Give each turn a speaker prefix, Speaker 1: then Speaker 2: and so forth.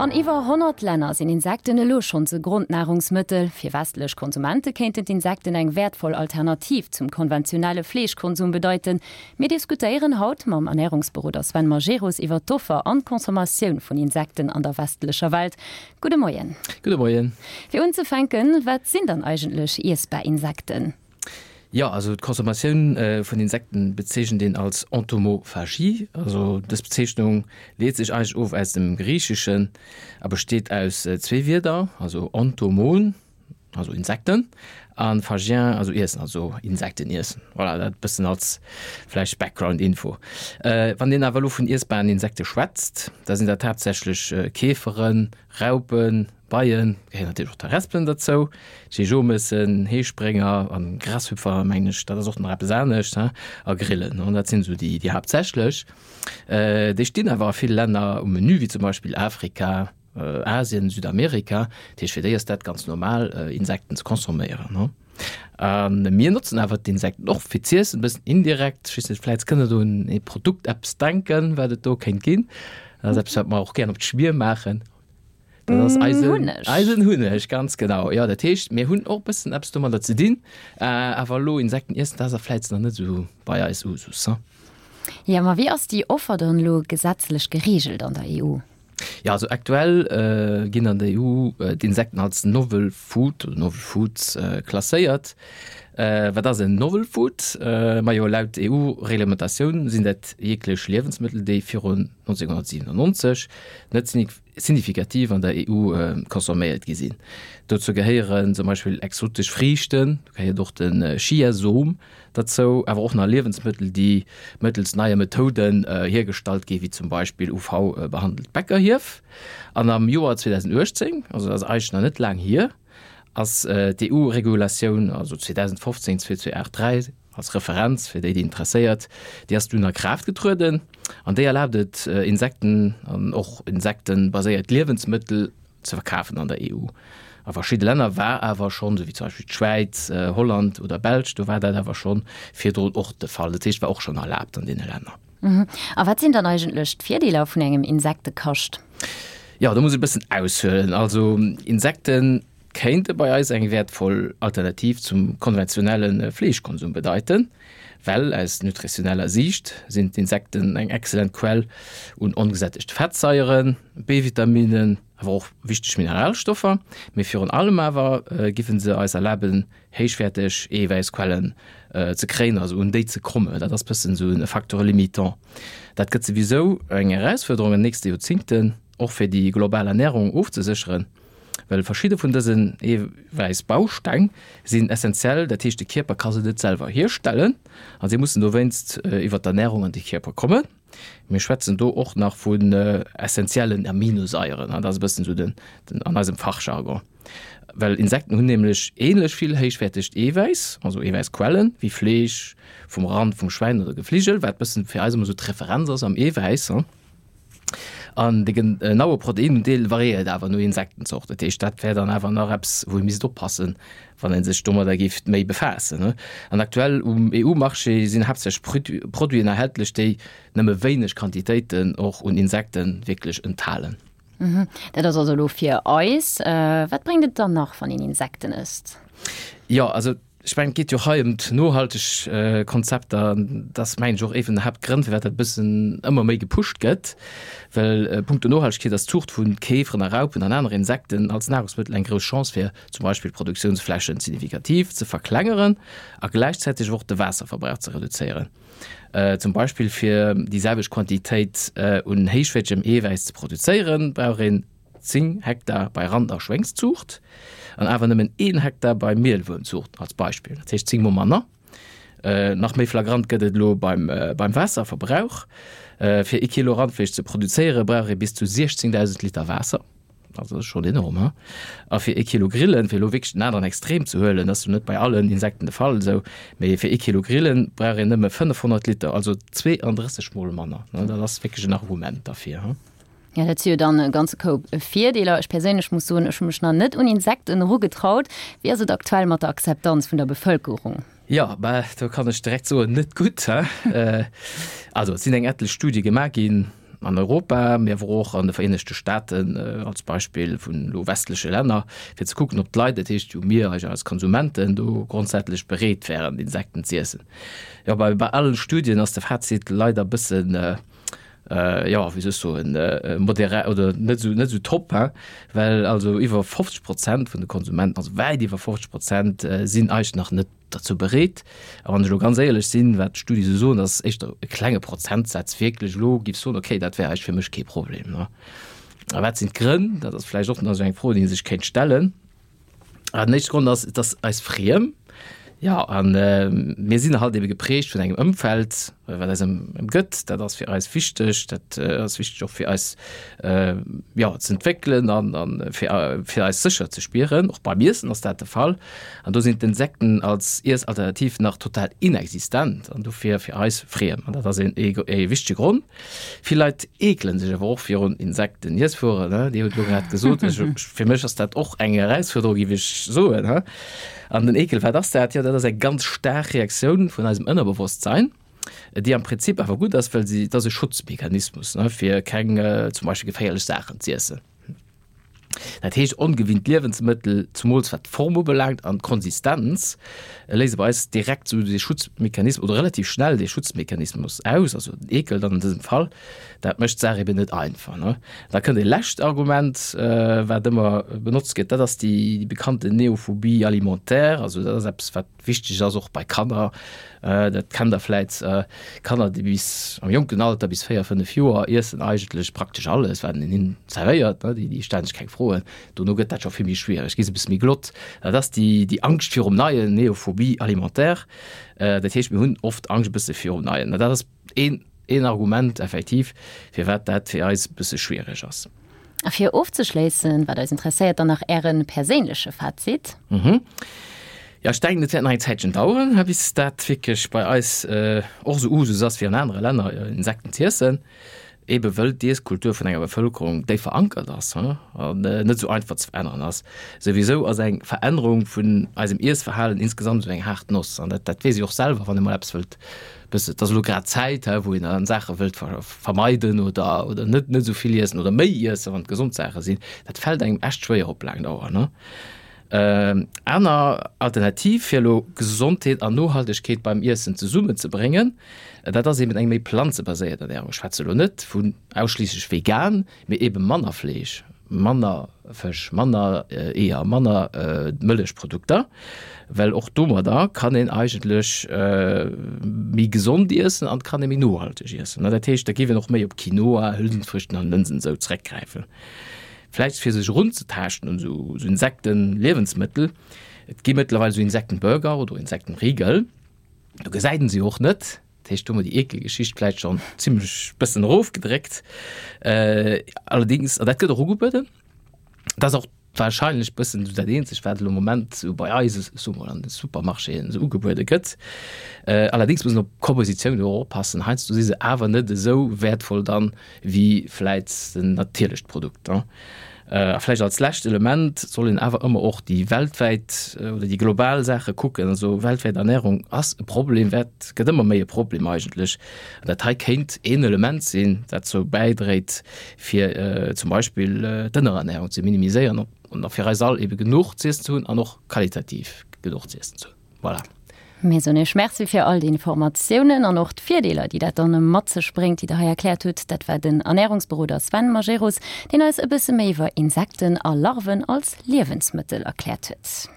Speaker 1: An iwwer 100 Länner sinn Insekten elo schonns e Grondnahrungsmëttel. Fir westlech Konsumente kéinten d'Insekten eng wäertvoll Alternativ zum konventionelle Fleeschkonsum bedeiten. Mir diskutéieren haut mam Ernärungsberoder Sven Majerus iwwer d'Offer an d'Consommatioun vun Insekten an der westlecher Welt. Gudde Moien.
Speaker 2: Gudde Moien.
Speaker 1: Fir unzefänken, wat sinn dann eigentlech iessbar Insekten?
Speaker 2: Jo, also d'Consommatioun vun Insekten bezeechent een als Entomophagie. Also dës Bezeechnung leet sech eigentlech of aus dem Griicheschen a besteet aus zwee Wierder, also entomon, also Insekten, a phagien, also iessen, also Insekten iessen. Voilà, dat e bëssen als vläicht Background-Info. Wann een awer elo vun iessbaren Insekte schwätzt, da sinn dat haaptsächlech Käferen, Raupen, Beien, gehéieren natierlech och d'Harespelen derzou, Jejomessen, Heesprénger an Grashüpfer, mengen ech, dat ass och nach eppes anescht, he, a Grillen, an dat sinn esou déi, déi haaptsächlech. Déi stinn awer a ville Länner um Menü, wéi zum Beispill Afrika, Asien, Südamerika. Dat heescht, fir déi ass dat ganz normal, Insekten ze consomméieren, he. A mir notzen awer d'Insekten och fir z'iessen, e bëssen indirekt. Ech weess net, vläicht kënnt Der do un ee Produkt eppes denken, wat et do kéint ginn. Dat ass eppes, wat mer och gären op d'Schmier maachen. Dat ass eisen Hunneg. Eisen Hunneg, ganz genau. Jo, dat heescht, mir hunn och e bëssen eppes domadder ze dinn. Awer elo Insekten iessen, dat ass a vläicht nach net esou bei eis Usus, hm?
Speaker 1: Jo, ma wéi ass déi Offer dann elo gesetzlech gereegelt an der EU?
Speaker 2: Jo, also aktuell ginn an der EU d'Insekten als Novel Food oder Novel Foods klasséiert. Wat ass en Novel Food? Majo, laut EU-Reglementatioun sinn dat jeglech Liewensmëttel, déi virun 1997 net signifikativ an der EU consomméiert gi sinn. Dozou gehéieren zum Beispill exotesch Friichten, do gehéiert och de Chiasom derzou, awer och nach Liewensmëttel, déi mëttels neie Methoden hiergestallt ginn, wéi zum Beispill UV-behandelt Bäckerhief. An am Joer 2018, also dat ass eigentlech nach net laang hier, ass d'EU-Regulatioun, also 2015 2283, als Referenz fir déi, déi interesséiert, déi ass dunn a Kraaft getrueden an déi erlaabt et, Insekten an och insektenbaséiert Liewensmëttel ze verkafen an der EU. A verschidde Länner war awer schonn, esou wéi zum Beispill d'Schwäiz, Holland oder Belsch, do war dat awer schonn virdrun och de Fall. Dat heescht, war och schonn erlaabt an deene Länner.
Speaker 1: A wat sinn dann eigentlech d'Virdeeler vun engem Insektekascht?
Speaker 2: Jo, do muss ech e bëssen aushuelen. Also Insekten kéinte bei eis eng wäertvoll Alternativ zum konventionelle Fleeschkonsum bedeiten, well aus nutritioneller Siicht sinn d'Insekten eng exzellent Quell un ongesättegte Fettsaieren, B-Vitaminen, awer och wichteg Mineralstoffer. Mee virun allem awer giffen se eis erlaben, héichwäerteg Eewäissquellen ze kréien, also un déi ze kommen. Dat ass bëssen esou e Facteur limitant. Dat gëtt souwisou eng Erausfuerderung an den nächste Joerzingten, och fir déi global Ernärung ofzesécheren. Well verschidde vun dësen Eewäissbausteng sinn essenziell, dat heescht de Kierper ka se net selwer hierstellen a si mussen dowéinst iwwer d'Ernärung an de Kierper kommen. Mir schwätzen do och nach vun essenziellen Aminosaieren, dat ass e bëssen esou den an eisem Fachjargon. Well Insekten hunn nämlech änlech vill héichwäertegt Eewäiss, also Eewäissquellen, wéi Fleesch vum Rand, vum Schwäin oder Gefligel, wat bëssen fir eis ëmmer esou d'Referenz ass am Eewäiss. An de genaue Proteinundeel variéiert awer no Insektenzort. Dat heescht, dat wär dann awer nach eppes, wou ee misst oppassen, wann ee sech domadder géif méi befaassen. An aktuell um EU-Marché sinn haaptsächlech Produiten erhältlech, déi nëmme wéineg Quantitéiten och un Insekte wierklech enthalen.
Speaker 1: Dat ass also elo fir eis. Wat bréngt et dann nach, wann een Insekten ësst?
Speaker 2: Jo, also Ech mengen, et geet jo hei ëm d'nohalteg Konzepter. Dat ass, mengen ech, och ee vun den Haaptgrënn, firwat dat e bëssen ëmmer méi gepusht gëtt. Well punkto Nohaltegkeet ass d'Zuucht vu Käferen a Raupen an anere Insekten als Nahrungsmëttel eng grouss Chance, fir zum Beispill d'Produktiounsflächen signifikativ ze verklengeren a gläichzäiteg och de Waasserverbrauch ze reduzéieren. Zum Beispill fir déi selwecht Quantitéit un héichwäertegem Eewäiss ze produzéieren, brauch een 10 Hektar bei Rand a Schwéngszuucht an awer nëmmen een Hektar bei Mielwuermzuucht als Beispill, dat heescht 10 mol manner. Nach méi flagrant gëtt et elo beim beim Waasserverbrauch. Fir ee Kilo Randfleesch ze produzéiere brauch ee bis zu 16.000 Liter Waasser, also dat ass schonn enorm, he? A fir ee Kilo Grillen, fir elo wierklech den aneren Extrem ze huelen, dat ass jo net bei allen Insekten de Fall esou, mee fir ee Kilo Grillen brauch een nëmme 500 Liter, also 32 mol manner. Dat ass wierklech en Argument derfir, he?
Speaker 1: Ja, dat si jo dann e ganze Koup Virdeeler. Ech perséinlech muss soen, ech hu mech nach net un Insekten erugetraut. Wéi ass et aktuell mat der Akzeptanz vun der Bevëlkerung?
Speaker 2: Jo, bah, do kann ech direkt soen, net gutt, he. Also, et sinn eng etlech Studie gemaach ginn. an Europa, mee awer och an de Vereenegte Staaten als Beispill vun elo westleche Länner, fir ze kucken, ob d'Leit, dat heescht jo mir als Konsumenten, do grondsätzlech bereet wären, Insekten z'iessen. Jo, bei bei allen Studien ass de Fazit leider e bëssen, jo, wéi soll ech soen, modéré oder net esou net esou top, hein, well also iwwer 50 Prozent vun de Konsumenten, also wäit iwwer 50 Prozent, sinn eigentlech nach net derzou bereet. A wann ech elo ganz éierlech sinn, wat d'Studie esou soen, ass éischter e klenge Prozentsaz wierklech elo giff soen, okay, dat wär eigentlech fir mech kee Problem, ne. A wat sinn d'Grënn? Dat ass vläicht och nach esou eng Fro, déi ee sech kéint stellen. Ah, den éischte Grond ass, et ass eis friem. Jo, a mir sinn halt ebe geprägt vun engem Ëmfeld, wat eis ëmgëtt. Dat ass fir eis wichteg, dat ass wichteg och fir eis, jo, ze entwéckelen an a fir fir eis sécher ze spieren. Och beim Iessen ass dat de Fall. An do sinn d'Insekten als Iessalternativ nach total inexistent an dofir fir eis friem. An dat ass een ee wichtege Grond. Vill Leit eekelen sech awer och virun Insekten. Iesswueren, ne? Dir hutt elo grad gesot, ech, fir mech ass dat och eng Erausfuerderung, géif ech soen, he? An den Eekel, wat ass dat? Jo, dat ass eng ganz staark Reaktioun vun eisem Ënnerbewosstsein, déi am Prinzip awer gutt ass, well si, et ass e Schutzmechanismus, ne, fir keng zum Beispill geféierlech Saachen z'iessen. Dat heescht, ongewinnt Liewensmëttel, zumools wat d'Form ubelaangt an d'Konsistenz, léise bei eis direkt esou dee Schutzmechanismus oder relativ schnell dee Schutzmechanismus aus, also den Eekel dann an dësem Fall. Dat mécht d'Saach eben net einfach, ne. Da kënnt e lescht Argument, wat ëmmer benotzt gëtt, dat ass déi bekannten Neophobie alimentaire. Also dat ass eppes, wat Wichteg ass och bei Kanner, dat kennt der vläit, Kanner déi bis am jonken Alter, bis 4, 5 Joer, iessen eigentlech praktesch alles wat een hinnen zerwéiert, déi stellen sech keng Froen. Dono gëtt dat scho vill méi schwiereg, gi se e bësse méi glott. Dat ass déi déi Angscht virum Neien, Neophobie alimentaire. Dat heescht mir hunn oft Angscht e bësse virum Neien. Dat ass een een Argument effektiv, firwat dat fir eis e bësse schwiereg ass.
Speaker 1: A fir ofzeschléissen, wat eis interesséiert, dann nach Äre perséinleche Fazit.
Speaker 2: Mhm. Jo, ech denken, et wäert nach eng Zäitchen daueren, bis dat wierklech bei eis och esou Usus ass wéi an anere Länner, Insekten z'iessen, ebe wëll d'Iesskultur vun enger Bevëlkerung déif verankert ass an net esou einfach ze veränneren ass. Souwisou ass eng Verännerung vun eisem Iessverhalen insgesamt esou eng haart Noss an dat dat weess ee och selwer, wann ee mol eppes wëllt Bësse, et ass elo grad Zäit, hä, wou een dann Saache wëllt vermeiden oder, oder net, net esou vill iessen oder méi iessen, wann et gesond Saache sinn. Dat fält engem echt schwéier op laang Dauer, ne? Aner Alternativ, fir elo Gesondheet an Nohaltegkeet beim Iessen zesummenzebréngen, dat ass eben eng méi planzebaséiert Ernärung. Ech schwätze elo net vun ausschliisslech vegan, Mee ebe manner Fleesch, manner Fësch, manner Eeër, manner Mëllechprodukter, well och domadder kann een eigentlech méi gesond iessen an kann ee méi nohalteg iessen. Dat heescht, da géif een och méi op Quinoa, Hülsenfrüchten an Lënsen esou zeréckgräifen. Vläicht fir sech erunzetaaschten un esou Insektenliewensmëttel, et gi mëttlerweil esou Insektenburger oder Insektenriegel, do gesäit een se jo och net. Dat heescht, do hu mer déi Eekelgeschicht vläicht schonn zimlech bëssen erofgedréckt. Allerdéngs, an dat gëtt och ugebueden, dat ass och wahrscheinlech bëssen esou dat eenzegt, wat elo am Moment esou bei eis, ech soe mol, an de Supermarchéen esou ugebuede gëtt. Allerdéngs muss een op d'Kompositioun och oppassen. Heiansdo si se awer net esou wäertvoll dann, wéi vläit en natierlecht Produkt. A vläicht als lescht Element soll een awer ëmmer och déi weltwäit oder déi global Saache kucken. Also weltwäit Ernährung ass e Problem, wäert, gëtt ëmmer méi e Problem eigentlech. An dat hei kéint een Element sinn, dat dozou bäidréit, fir zum Beispill d'Ënnerernährung ze minimiséieren an fir eis all ebe genuch z'iessen ze hunn an och qualitativ genuch z'iessen ze hunn. Voilà.
Speaker 1: Mir soen Iech Merci fir all déi Informatiounen an och d'Virdeeler, déi dat dann mat sech bréngt, déi Der hei erkläert hutt. Dat war den Ernärungsberoder Sven Majerus, deen eis e bësse méi iwwer Insekten a Larven als Liewensmëttel erkläert huet.